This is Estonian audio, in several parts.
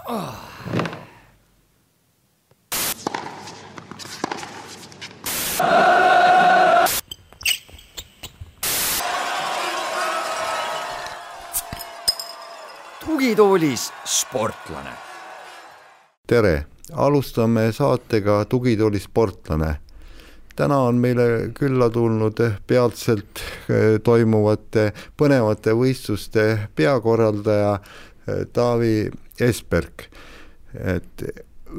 Tugitoolis sportlane. Tere, alustame saatega Tugitooli sportlane. Täna on meile külla tulnud peatselt toimuvate põnevate võistluste peakorraldaja Taavi Esperk.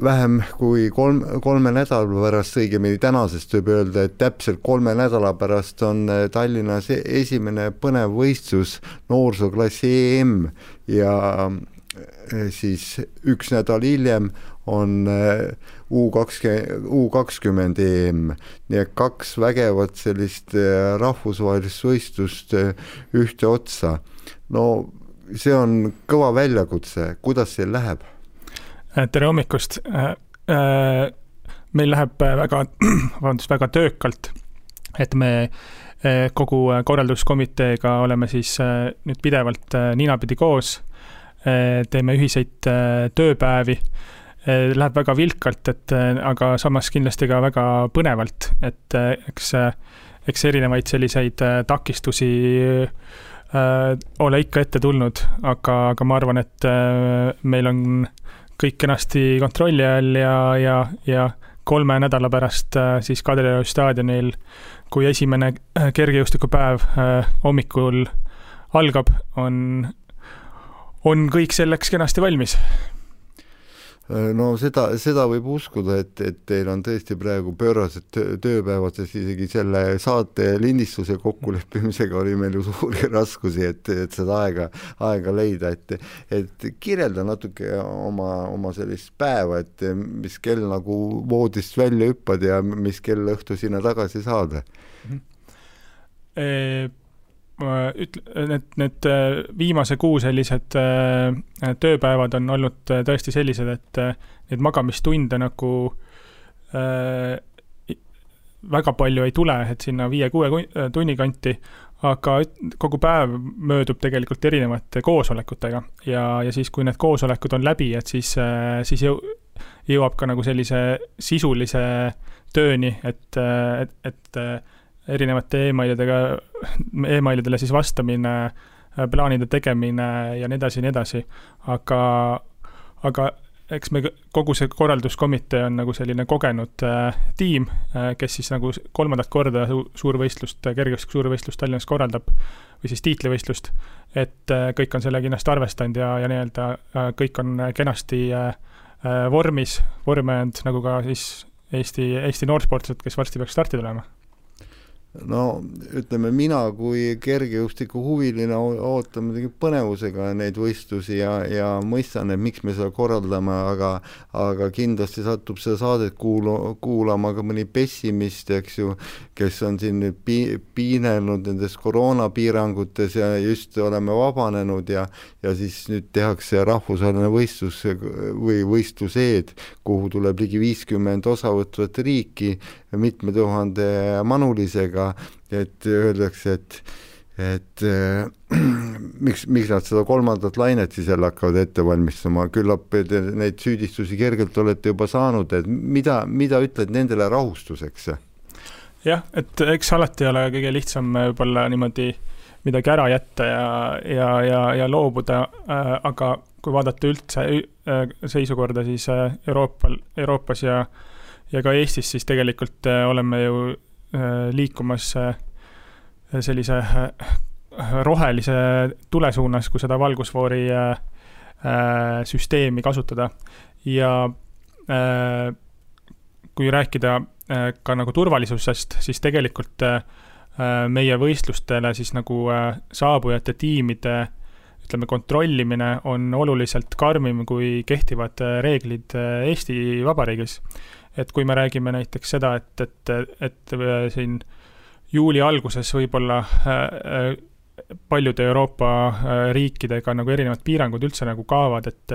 Vähem kui kolme nädala pärast, õigemini tänasest võib öelda, et täpselt 3 nädala pärast on Tallinnas esimene põnev võistlus noorsooklassi EM ja siis 1 nädal hiljem on U20 EM. Nii et 2 vägevat sellist rahvusvahelist võistlust ühte otsa. No see on kõva väljakutse. Kuidas see läheb? Tere hommikust. Meil läheb väga töökalt, et me kogu korralduskomiteega oleme siis nüüd pidevalt ninapidi koos, teeme ühiseid tööpäevi, läheb väga vilkalt, aga samas kindlasti ka väga põnevalt, et eks erinevaid selliseid takistusi ole ikka ette tulnud, aga ma arvan, et meil on kõik kenasti kontrolli all ja 3 nädala pärast siis Kadrioru staadionil, kui esimene kergejõustikupäev hommikul algab, on kõik selleks kenasti valmis. No seda võib uskuda, et teil on tõesti praegu pöörased tööpäevad, sest isegi selle saate lindistuse kokkuleppimisega oli meil ju suuri raskusi, et seda aega leida, et kirjelda natuke oma sellist päeva, et mis kell nagu voodist välja hüppad ja mis kell õhtu sinna tagasi saada. Need viimase kuu sellised tööpäevad on olnud tõesti sellised, et need magamistunde nagu väga palju ei tule, et sinna 5-6 tunni kanti, aga kogu päev möödub tegelikult erinevate koosolekutega ja siis, kui need koosolekud on läbi, et siis jõuab ka nagu sellise sisulise tööni, et erinevate e-mailidele siis vastamine, plaanide tegemine ja nii edasi. Aga eks me kogu see korralduskomitee on nagu selline kogenud tiim, kes siis nagu 3. korda suurvõistlust, kergejõustiku suurvõistlust Tallinnas korraldab või siis tiitlivõistlust, et kõik on selle kindlasti arvestanud ja nii-öelda kõik on kenasti vorme and, nagu ka siis Eesti noorsportlased, kes varsti peaks starti tulema. No ütleme, mina kui kergejõustiku huviline ootan muidugi põnevusega neid võistlusi ja mõistan, et miks me seda korraldame, aga kindlasti satub seda saadet kuulama ka mõni pessimist, eks ju, kes on siin piinelnud nendes koroonapiirangutes ja just oleme vabanenud ja siis nüüd tehakse rahvusvaheline võistlus või võistluseed, kuhu tuleb ligi 50 osavõtvat riiki mitme tuhande manulisega, et öeldakse, et miks nad seda 3. lainet siis jälle hakkavad ette valmistama, küllap neid süüdistusi kergelt olete juba saanud, et mida ütled nendele rahustuseks? Jah, et eks alati ole kõige lihtsam võib-olla niimoodi midagi ära jätta ja loobuda, aga kui vaadata üldse seisukorda siis Euroopas ja ka Eestis, siis tegelikult oleme ju liikumas sellise rohelise tule suunas, kui seda valgusfoori süsteemi kasutada. Ja kui rääkida ka nagu turvalisusest, siis tegelikult meie võistlustele siis nagu saabujate tiimide kontrollimine on oluliselt karmim kui kehtivad reeglid Eesti Vabariigis. Et kui me räägime näiteks seda, et siin juuli alguses võib-olla paljude Euroopa riikidega nagu erinevad piirangud üldse nagu kaavad, et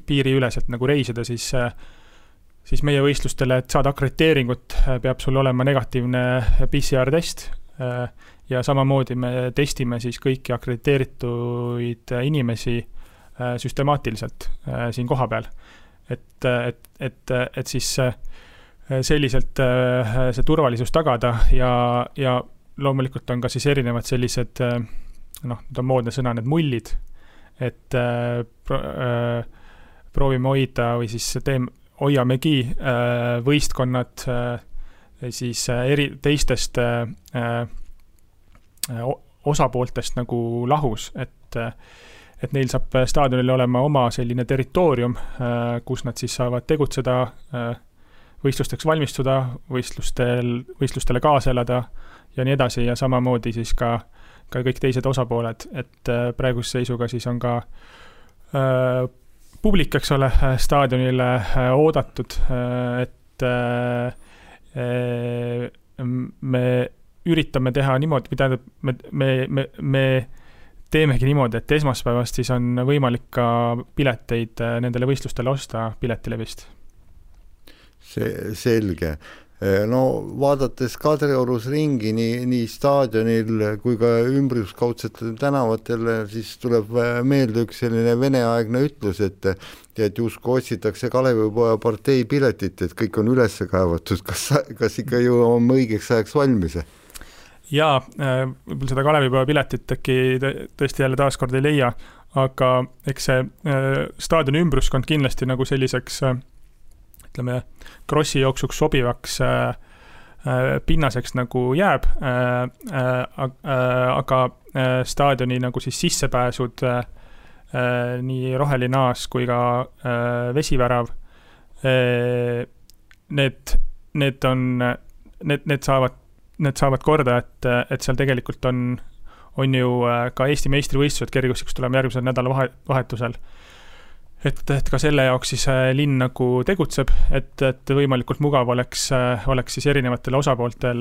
piiriüleselt nagu reisida, siis meie võistlustele, et saada akrediteeringut, peab sul olema negatiivne PCR-test ja samamoodi me testime siis kõiki akrediteerituid inimesi süstemaatiliselt siin koha peal. Et siis selliselt see turvalisus tagada ja loomulikult on ka siis erinevad sellised, nüüd on moodne sõna, need mullid, et proovime hoida või siis hoiamegi võistkonnad siis teistest osapooltest nagu lahus, et neil saab staadionil olema oma selline territoorium, kus nad siis saavad tegutseda, võistlusteks valmistuda, võistlustele kaasa elada ja nii edasi ja samamoodi siis ka kõik teised osapooled, et praeguse seisuga siis on ka publik, eks ole, staadionile oodatud, et me üritame teha niimoodi, mida me teemegi niimoodi, et esmaspäevast siis on võimalik ka pileteid nendele võistlustele osta Piletilevist. Selge. No vaadates Kadriorus ringi nii staadionil kui ka ümbruskaudsetel tänavatel, siis tuleb meelde üks selline veneaegne ütlus, et justkui otsitakse Kalevipoja partei piletit, et kõik on üles kaevatud. Kas ikka ju on õigeks ajaks valmis? Jaa, võib-olla seda Kalevipoja piletit äkki tõesti jälle taaskord ei leia, aga eks see staadioni ümbruskond kindlasti nagu selliseks ütleme, krossi jooksuks sobivaks pinnaseks nagu jääb, aga staadioni nagu siis sissepääsud, nii roheline aas kui ka vesivärav, need saavad korda, et seal tegelikult on ju ka Eesti meistrivõistlused kergejõustikus tuleme järgmisel nädalavahetusel. Et ka selle jaoks siis linn nagu tegutseb, et võimalikult mugav oleks siis erinevatel osapooltel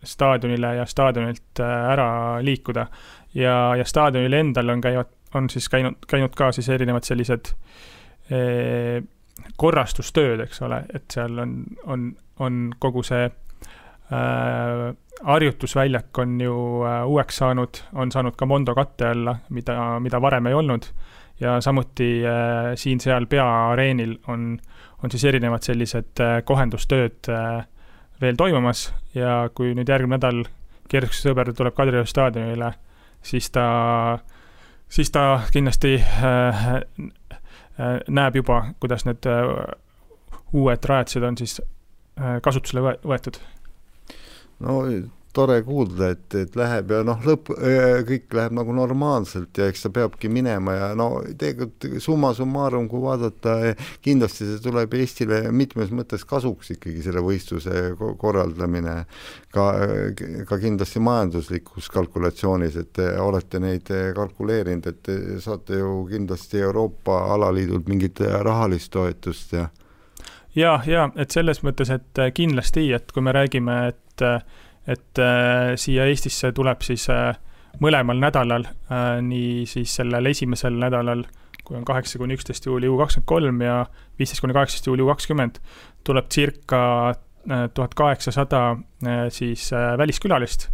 staadionile ja staadionilt ära liikuda. Ja staadionil endal on siis käinud ka siis erinevad sellised korrastustööd, eks ole, et seal on kogu see harjutusväljak on ju uueks on saanud ka Mondo katte alla, mida varem ei olnud. Ja samuti siin-seal peaareenil on siis erinevad sellised kohendustööd veel toimumas ja kui nüüd järgmine nädal kergejõustikusse sõber tuleb Kadrioru staadionile, siis ta kindlasti näeb juba, kuidas need uued rajatised on siis kasutusele võetud. No tore kuulda, et läheb ja kõik läheb nagu normaalselt ja eks ta peabki minema ja tegelikult summa summarum, kui vaadata, kindlasti see tuleb Eestile mitmes mõttes kasuks ikkagi selle võistluse korraldamine ka kindlasti majanduslikus kalkulatsioonis, et olete neid kalkuleerinud, et saate ju kindlasti Euroopa alaliidult mingit rahalist toetust ja, et selles mõttes, et kindlasti, et kui me räägime, et siia Eestisse tuleb siis mõlemal nädalal, nii siis sellel esimesel nädalal, kui on 8-11 juuli U23 ja 15-18 juuli U20, tuleb circa 1800 siis väliskülalist,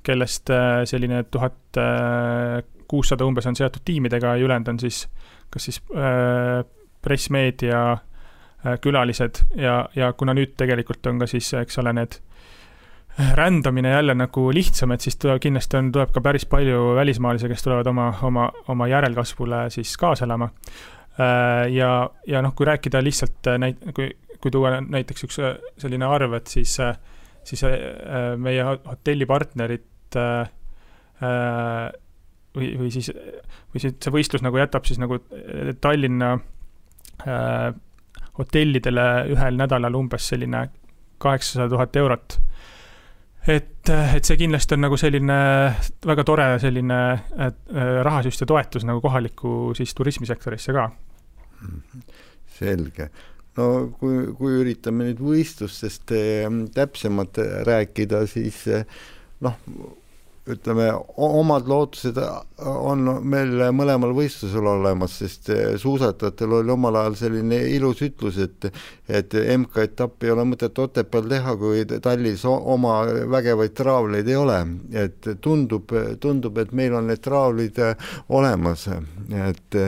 kellest selline 1600 umbes on seotud tiimidega ja ülejäänud on siis kas siis pressmeedia külalised ja kuna nüüd tegelikult on ka siis, eks ole, need rändamine jälle nagu lihtsam, et siis kindlasti tuleb ka päris palju välismaalisi, kes tulevad oma järelkasvule siis kaasa elama. Ja kui rääkida lihtsalt, kui tuua näiteks üks selline arv, et siis meie hotellipartnerid või siis see võistlus nagu jätab siis nagu Tallinna hotellidele ühel nädalal umbes selline 800 000 eurot. Et see kindlasti on nagu selline väga tore selline rahasüst ja toetus nagu kohaliku siis turismisektorisse ka. Selge. No kui üritame nüüd võistlustest täpsemalt rääkida, siis ütleme, omad lootused on meil mõlemal võistlusel olemas, sest suusatajatel oli omal ajal selline ilus ütlus, et MK-etapp ei ole mõtet Otepääl teha, kui Tallis oma vägevaid traavleid ei ole. Et tundub, et meil on need traavlid olemas. Et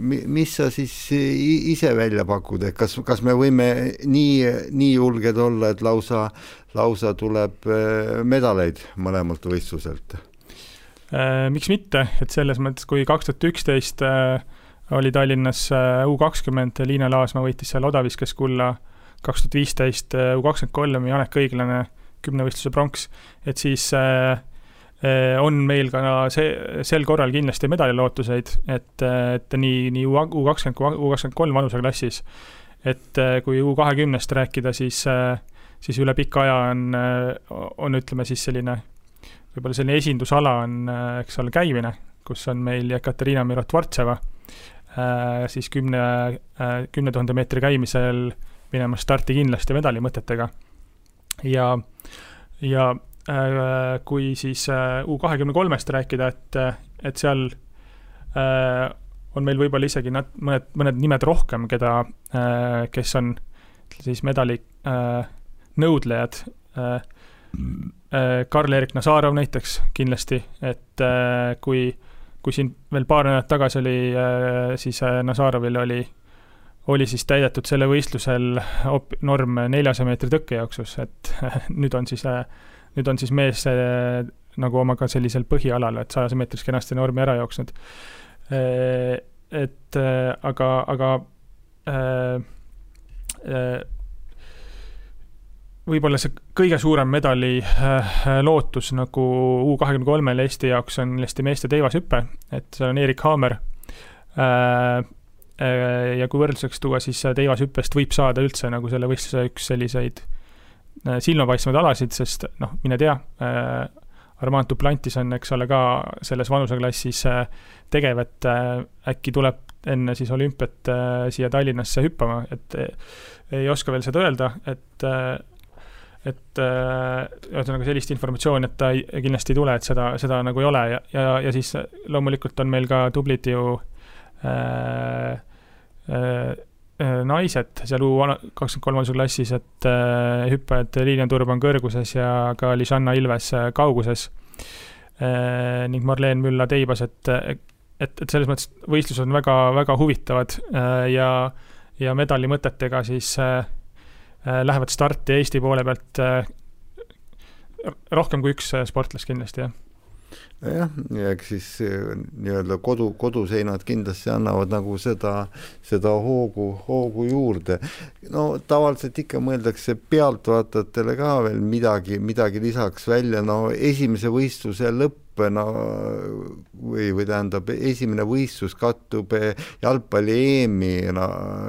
mis sa siis ise välja pakud, et kas me võime nii julged olla, et lausa tuleb medaleid mõlemalt võistluselt? Miks mitte, et selles mõttes, kui 2011 oli Tallinnas U20, Liina Laasma võitis seal odaviskes kulla, 2015 U23 Janek Õiglane 10 võistluse pronks, et siis on meil ka sel korral kindlasti medalilootuseid, et nii U20 kui U23 vanuseklassis, et kui U20-st rääkida, siis üle pika aja on ütleme siis selline, võib-olla selline esindusala on, eks ole, käimine, kus on meil Ekaterina Mirotvartseva, siis 10 000 meetri käimisel minema starti kindlasti medalimõtetega. Ja kui siis U23-st rääkida, et seal on meil võib-olla isegi mõned nimed rohkem, kes on siis medali nõudlejad, Karl-Erik Nazarov näiteks kindlasti, et kui siin veel paar nädalat tagasi oli, siis Nazarovil oli siis täidetud selle võistlusel norm 400 meetri tõkkejooksus, et nüüd on siis mees nagu omaga sellisel põhialal, et 100 meetris kenasti normi ära jooksnud. Aga võib-olla see kõige suurem medali lootus nagu U23 Eesti jaoks on Eesti meeste teivashüppe, et seal on Erik Haamer. Ja kui võrdluseks tuua, siis teivashüppest võib saada üldse nagu selle võistluse üks selliseid silmapaistvaid alasid, sest mine tea, Armand Duplantis on, eks ole, ka selles vanuseklassis tegev, et äkki tuleb enne siis olümpiat siia Tallinnasse hüppama, et ei oska veel seda öelda, et sellist informatsiooni, et ta kindlasti ei tule, et seda nagu ei ole ja siis loomulikult on meil ka tublid ju naised seal U23 klassis, et hüppajad Liilian Turban kõrguses ja ka Lisanna Ilves kauguses ning Marleen Mülla teibas, et selles mõttes võistlused on väga, väga huvitavad ja medali mõtetega siis lähevad starti Eesti poole pealt rohkem kui üks sportlas kindlasti, jah. Ja eks siis nii-öelda koduseinad kindlasti annavad nagu seda hoogu juurde. No tavaliselt ikka mõeldakse pealtvaatajatele ka veel midagi lisaks välja. No esimese võistluse lõpp või tähendab, esimene võistlus kattub jalgpalli EM-i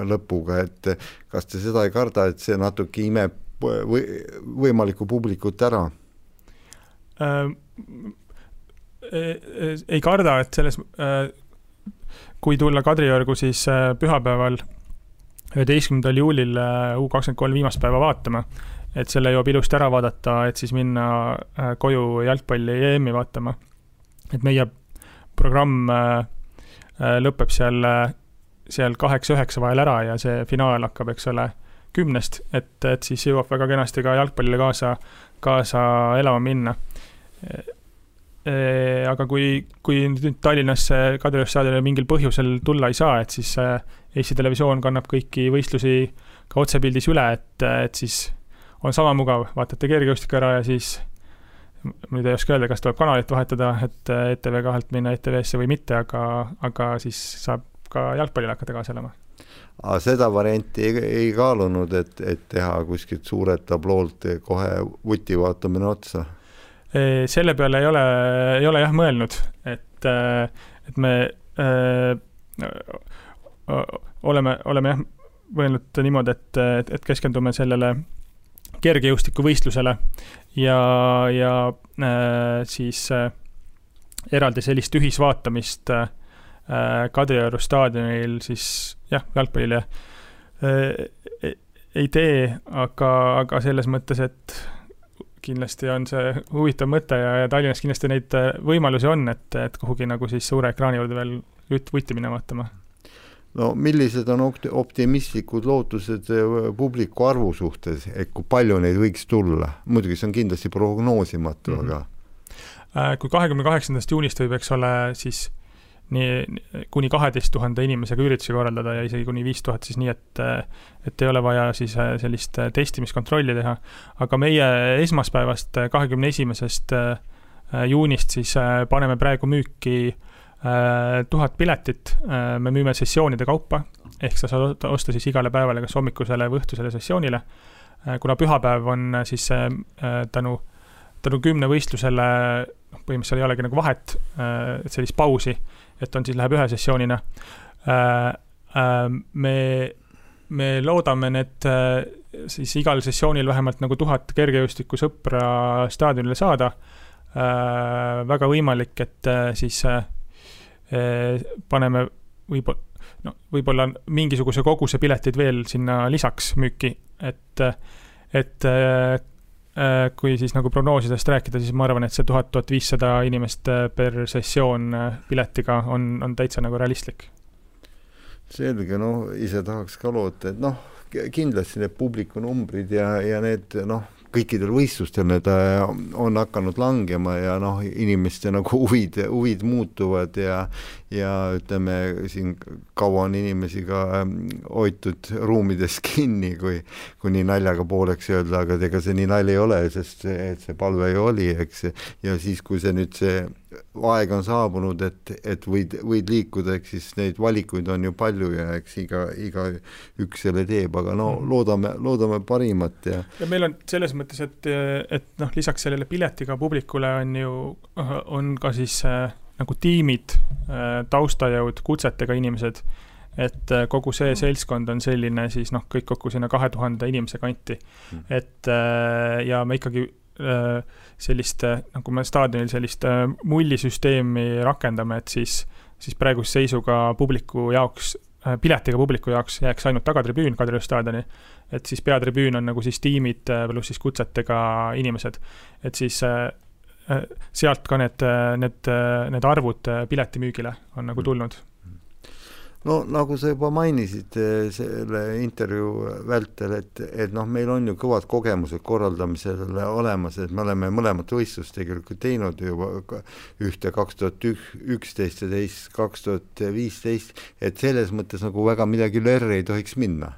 lõpuga, et kas te seda ei karda, et see natuke imeb võimalikku publikut ära? Ei karda, et selles kui tulla Kadriorgu siis pühapäeval 11. juulil U23 viimast päeva vaatama, et selle jõuab ilusti ära vaadata, et siis minna koju jalgpalli EM-i vaatama. Et meie programm lõpeb seal 8-9 vahel ära ja see finaal hakkab, eks ole, 10, et siis jõuab väga kenasti ka jalgpallile kaasa elama minna. Aga kui nüüd Tallinnasse Kadriorgu staadionile mingil põhjusel tulla ei saa, et siis Eesti Televisioon kannab kõiki võistlusi ka otsepildis üle, et siis on sama mugav, vaatate kergejõustikku ära ja siis nüüd ei oska öelda, kas tuleb kanalit vahetada, et ETV2-lt minna ETV-sse või mitte, aga siis saab ka jalgpallile hakata kaasa elama. Seda varianti ei kaalunud, et teha kuskilt suurelt tabloolt kohe vuti vaatamine otsa? Selle peale ei ole jah mõelnud, et me oleme jah mõelnud niimoodi, et keskendume sellele kergejõustiku võistlusele ja siis eraldi sellist ühisvaatamist Kadrioru staadionil siis jah, jalgpallile ei tee, aga selles mõttes, et kindlasti on see huvitav mõte ja Tallinnas kindlasti neid võimalusi on, et kuhugi nagu siis suure ekraani juurde veel vutti minna vaatama. No millised on optimistlikud lootused publiku arvu suhtes, et kui palju neid võiks tulla? Muidugi see on kindlasti prognoosimatu, aga... Kui 28. juunist võib, eks ole, siis kuni 12 000 inimesega üritusi korraldada ja isegi kuni 5000, siis nii, et ei ole vaja siis sellist testimiskontrolli teha. Aga meie esmaspäevast 21. juunist siis paneme praegu müüki 1000 piletit, me müüme sessioonide kaupa, ehk sa saad osta siis igale päevale kas hommikusele või õhtusele sessioonile. Kuna pühapäev on siis tänu 10 võistlusele, põhimõtteliselt ei olegi nagu vahet, et sellist pausi, et on siis läheb ühe sessioonina. Me loodame need siis igal sessioonil vähemalt nagu 1000 kergejõustiku sõpra staadionile saada. Väga võimalik, et siis paneme võib-olla mingisuguse koguse piletid veel sinna lisaks müüki, et kui siis nagu prognoosidest rääkida, siis ma arvan, et see 1000-1500 inimest per sessioon piletiga on täitsa nagu realistlik. Selge, ise tahaks ka loota, et kindlasti need publikunumbrid ja need, kõikidel võistlustel need on hakanud langema ja inimeste nagu huvid muutuvad ja ütleme, siin kaua on inimesi ka hoitud ruumides kinni, kui nii naljaga pooleks öelda, aga ega see nii nalja ei ole, sest see palve ju oli, eks, ja siis, kui see nüüd see aeg on saabunud, et võid liikuda, eks siis neid valikuid on ju palju ja eks iga üks selle teeb, aga loodame parimat. Ja meil on selles mõttes, et lisaks sellele piletiga publikule on ka siis nagu tiimid, taustajõud, kutsetega inimesed, et kogu see seltskond on selline siis kõik kokku sinna 2000 inimese kanti. Ja me ikkagi sellist, nagu me staadionil sellist mullisüsteemi rakendame, et siis praeguse seisuga publiku jaoks, piletiga publiku jaoks jääks ainult tagatribüün Kadrioru staadioni, et siis peatribüün on nagu siis tiimid pluss siis kutsetega inimesed, et siis sealt ka need arvud piletimüügile on nagu tulnud. Nagu sa juba mainisid selle intervjuu vältel, et meil on ju kõvad kogemused korraldamisele olemas, et me oleme mõlemat võistlust tegelikult teinud juba ühte 2011 ja teist 2015, et selles mõttes nagu väga midagi lörri ei tohiks minna.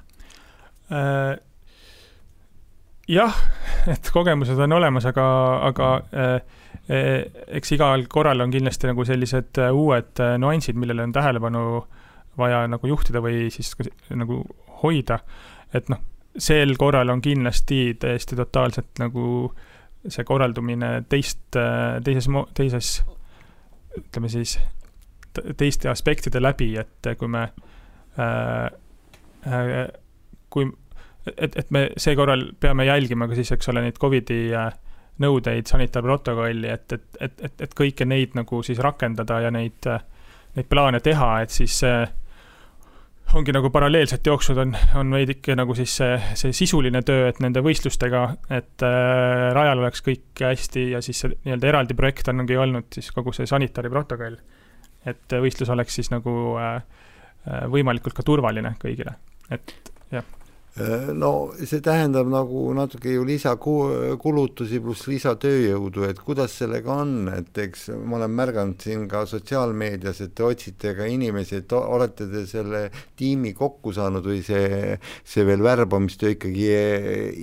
Jah, et kogemused on olemas, aga eks igal korral on kindlasti nagu sellised uued nuansid, millele on tähelepanu vaja nagu juhtida või siis nagu hoida, et sel korral on kindlasti täiesti totaalselt nagu see korraldumine teises ütleme siis teiste aspektide läbi, et kui me et me see korral peame jälgima ka siis, eks ole, neid COVID-i nõudeid, sanitaarprotokolli, et kõike neid nagu siis rakendada ja neid plaane teha, et siis ongi nagu paralleelselt jooksud on veidike nagu siis see sisuline töö, et nende võistlustega, et rajal oleks kõik hästi ja siis see nii-öelda eraldi projekt ongi olnud siis kogu see sanitaariprotokoll, et võistlus oleks siis nagu võimalikult ka turvaline kõigile, et jah. See tähendab nagu natuke ju lisakulutusi pluss lisatööjõudu, et kuidas sellega on, et eks ma olen märganud siin ka sotsiaalmeedias, et te otsite ka inimesi, et olete te selle tiimi kokku saanud või see veel värbamistöö ikkagi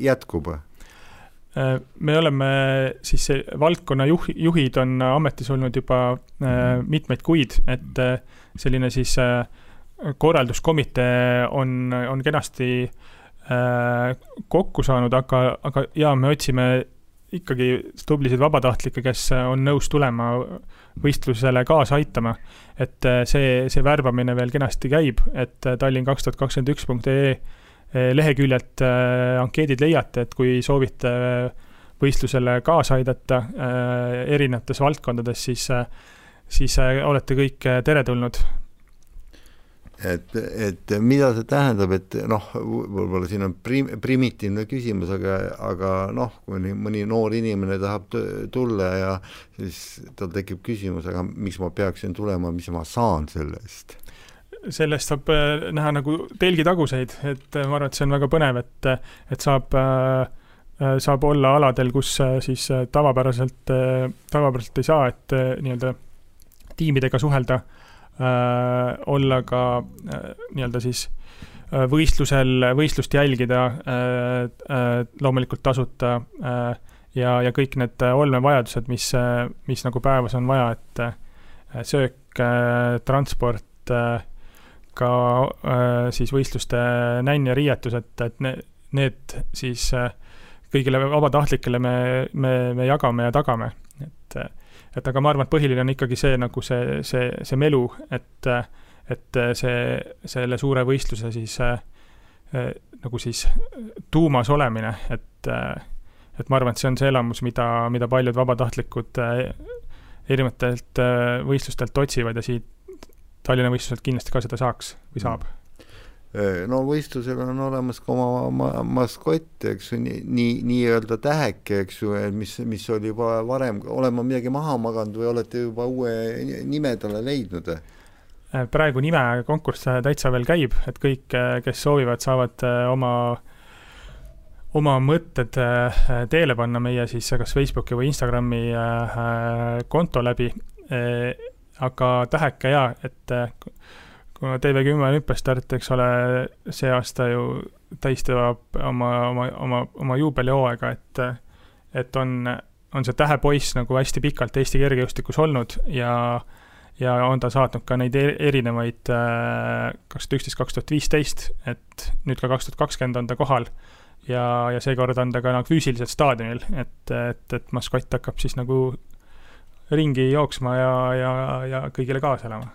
jätkub? Me oleme siis valdkonna juhid on ametis olnud juba mitmeid kuid, et selline siis korralduskomitee on kenasti kokku saanud, aga ja me otsime ikkagi tublisid vabatahtlikke, kes on nõus tulema võistlusele kaasa aitama, et see värbamine veel kenasti käib, et tallinn2021.ee leheküljelt ankeedid leiate, et kui soovite võistlusele kaasa aidata erinevates valdkondades, siis olete kõik teretulnud. et mida see tähendab, et noh, võib-olla siin on primitiivne küsimus, aga noh, kui mõni noor inimene tahab tulla ja siis tal tekib küsimus, aga miks ma peaksin tulema, mis ma saan selle eest? Sellest saab näha nagu telgitaguseid, et ma arvan, et see on väga põnev, et saab olla aladel, kus siis tavapäraselt ei saa, et nii-öelda tiimidega suhelda, olla ka nii-öelda siis võistlust jälgida, loomulikult tasuta ja kõik need olmevajadused, mis nagu päevas on vaja, et söök, transport, ka siis võistluste nänn ja riietus, et need siis kõigile vabatahtlikele me jagame ja tagame. Et aga ma arvan, et põhiline on ikkagi see, nagu see melu, et selle suure võistluse siis nagu siis tuumas olemine, et ma arvan, et see on see elamus, mida paljud vabatahtlikud erinevatelt võistlustelt otsivad ja siit Tallinna võistluselt kindlasti ka seda saaks või saab. No võistlusel on olemas ka oma maskott, eks ju, nii-öelda täheke, eks ju, mis oli juba varem, olema midagi maha maganud või olete juba uue nime talle leidnud? Praegu nime konkurss täitsa veel käib, et kõik, kes soovivad, saavad oma mõtted teele panna meie siis kas Facebooki või Instagrami konto läbi, aga täheke et kuna TV10 olümpiastart, eks ole, see aasta ju tähistab oma juubelihooaega, et on see tähepoiss nagu hästi pikalt Eesti kergejõustikus olnud ja on ta saatnud ka neid erinevaid 2011-2015, et nüüd ka 2020 on ta kohal ja seekord on ta ka nagu füüsiliselt staadionil, et maskott hakkab siis nagu ringi jooksma ja kõigile kaasa elama.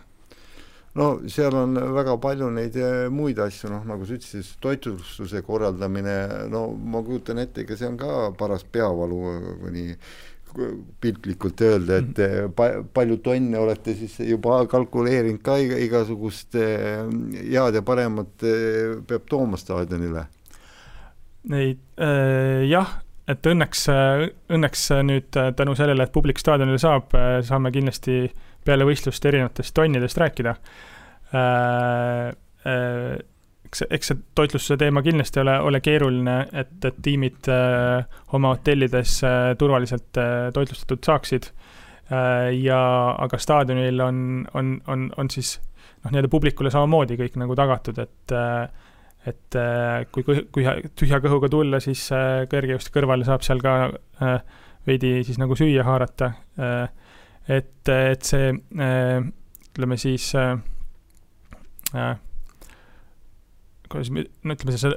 No seal on väga palju neid muid asju, nagu sa ütlesid, toitlustuse korraldamine, no ma kujutan ette, ega see on ka paras peavalu, kuni piltlikult öelda, et palju tonne olete siis juba kalkuleerinud ka igasugust head ja paremat peab tooma staadionile? Jah, et õnneks nüüd tänu sellele, et publik staadionile saame kindlasti peale võistlust erinevatest tonnidest rääkida. Eks see toitlustuse teema kindlasti ole keeruline, et tiimid oma hotellides turvaliselt toitlustatud saaksid. Aga staadionil on siis nii-öelda publikule samamoodi kõik nagu tagatud, et kui tühja kõhuga tulla, siis kergejõusti kõrvale saab seal ka veidi siis nagu süüa haarata. Et see, ütleme siis, ütleme see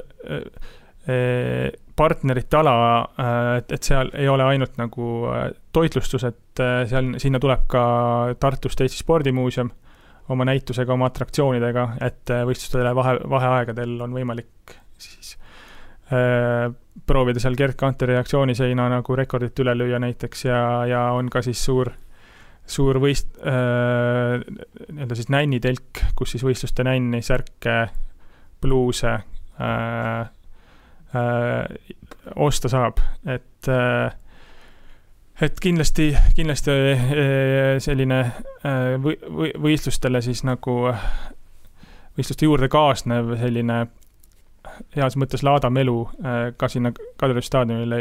partnerite ala, et seal ei ole ainult nagu toitlustus, et sinna tuleb ka Tartust Eesti Spordimuuseum oma näitusega, oma atraktsioonidega, et võistlustele vaheaegadel on võimalik siis proovida seal Gerd Kanteri reaktsiooniseina nagu rekordit üle lüüa näiteks ja on ka siis suur nii-öelda siis nännitelk, kus siis võistluste nänni, särke, bluuse osta saab, et kindlasti selline võistlustele siis nagu võistluste juurde kaasnev selline heas mõttes laadamelu ka sinna Kadrioru staadionile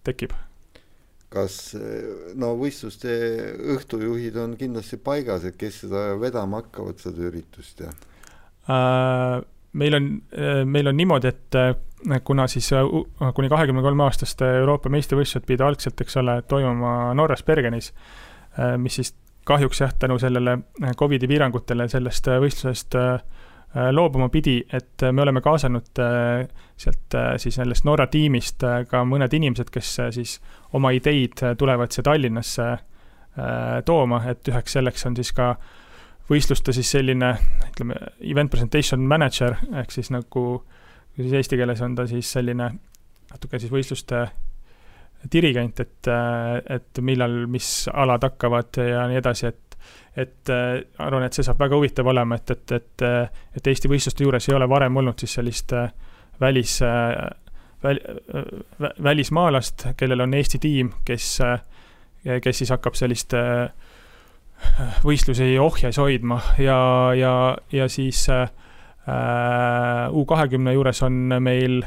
tekib. Kas võistluste õhtujuhid on kindlasti paigas, et kes seda vedama hakkavad seda üritust? Meil on niimoodi, et kuna siis kuni 23 aastaste Euroopa meistrivõistlused pidi algselt, eks ole, toimuma Norras Bergenis, mis siis kahjuks tänu sellele COVID-i piirangutele sellest võistlusest loobuma pidi, et me oleme kaasanud sealt siis sellest Norra tiimist ka mõned inimesed, kes siis oma ideid tulevad siia Tallinnasse tooma, et üheks selleks on siis ka võistluste siis selline, ütleme, event presentation manager, ehk siis nagu siis eesti keeles on ta siis selline natuke siis võistluste dirigent, et millal mis alad hakkavad ja nii edasi, arvan, et see saab väga huvitav olema, et Eesti võistluste juures ei ole varem olnud siis sellist välismaalast, kellel on Eesti tiim, kes siis hakkab sellist võistlusi ohjes hoidma ja siis U20 juures on meil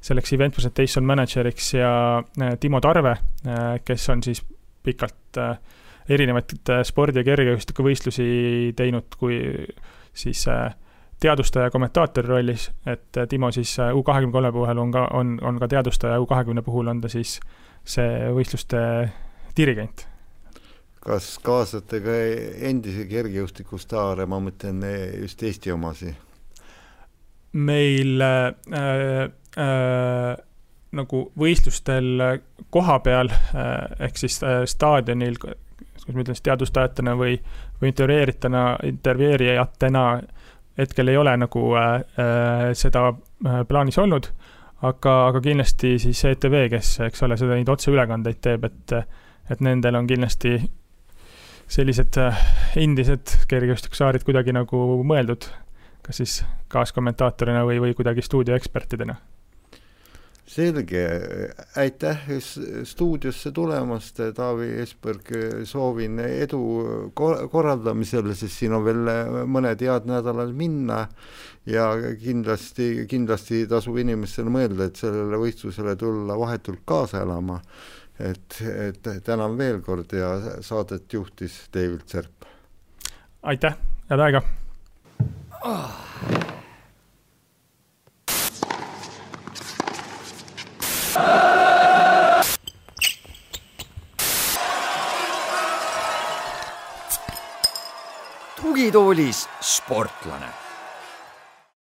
selleks event presentation manageriks ja Timo Tarve, kes on siis pikalt erinevaid spordi- ja kergejõustikuvõistlusi teinud kui siis teadustaja kommentaatori rollis, et Timo siis U23 puhul on ka teadustaja, U20 puhul on ta siis see võistluste dirigent. Kas kaasate ka endise kergejõustikustaare, ma mõtlen just Eesti omasi? Meil nagu võistlustel koha peal, ehk siis staadionil, kus ma ütlen, teadustajatena või intervjueerijatena hetkel ei ole nagu seda plaanis olnud, aga kindlasti siis ETV, kes, eks ole, seda neid otseülekandeid teeb, et nendel on kindlasti sellised endised kergejõustikusaarid kuidagi nagu mõeldud, kas siis kaaskommentaatorina või kuidagi stuudioekspertidena. Selge, aitäh stuudiosse tulemast, Taavi Esberg, soovin edu korraldamisel, sest siin on veel mõned head nädalal minna ja kindlasti tasub inimestele mõelda, et sellele võistlusele tulla vahetult kaasa elama. Et tänan veel kord ja saadet juhtis David Serp. Aitäh, head aega! Tugitoolis sportlane.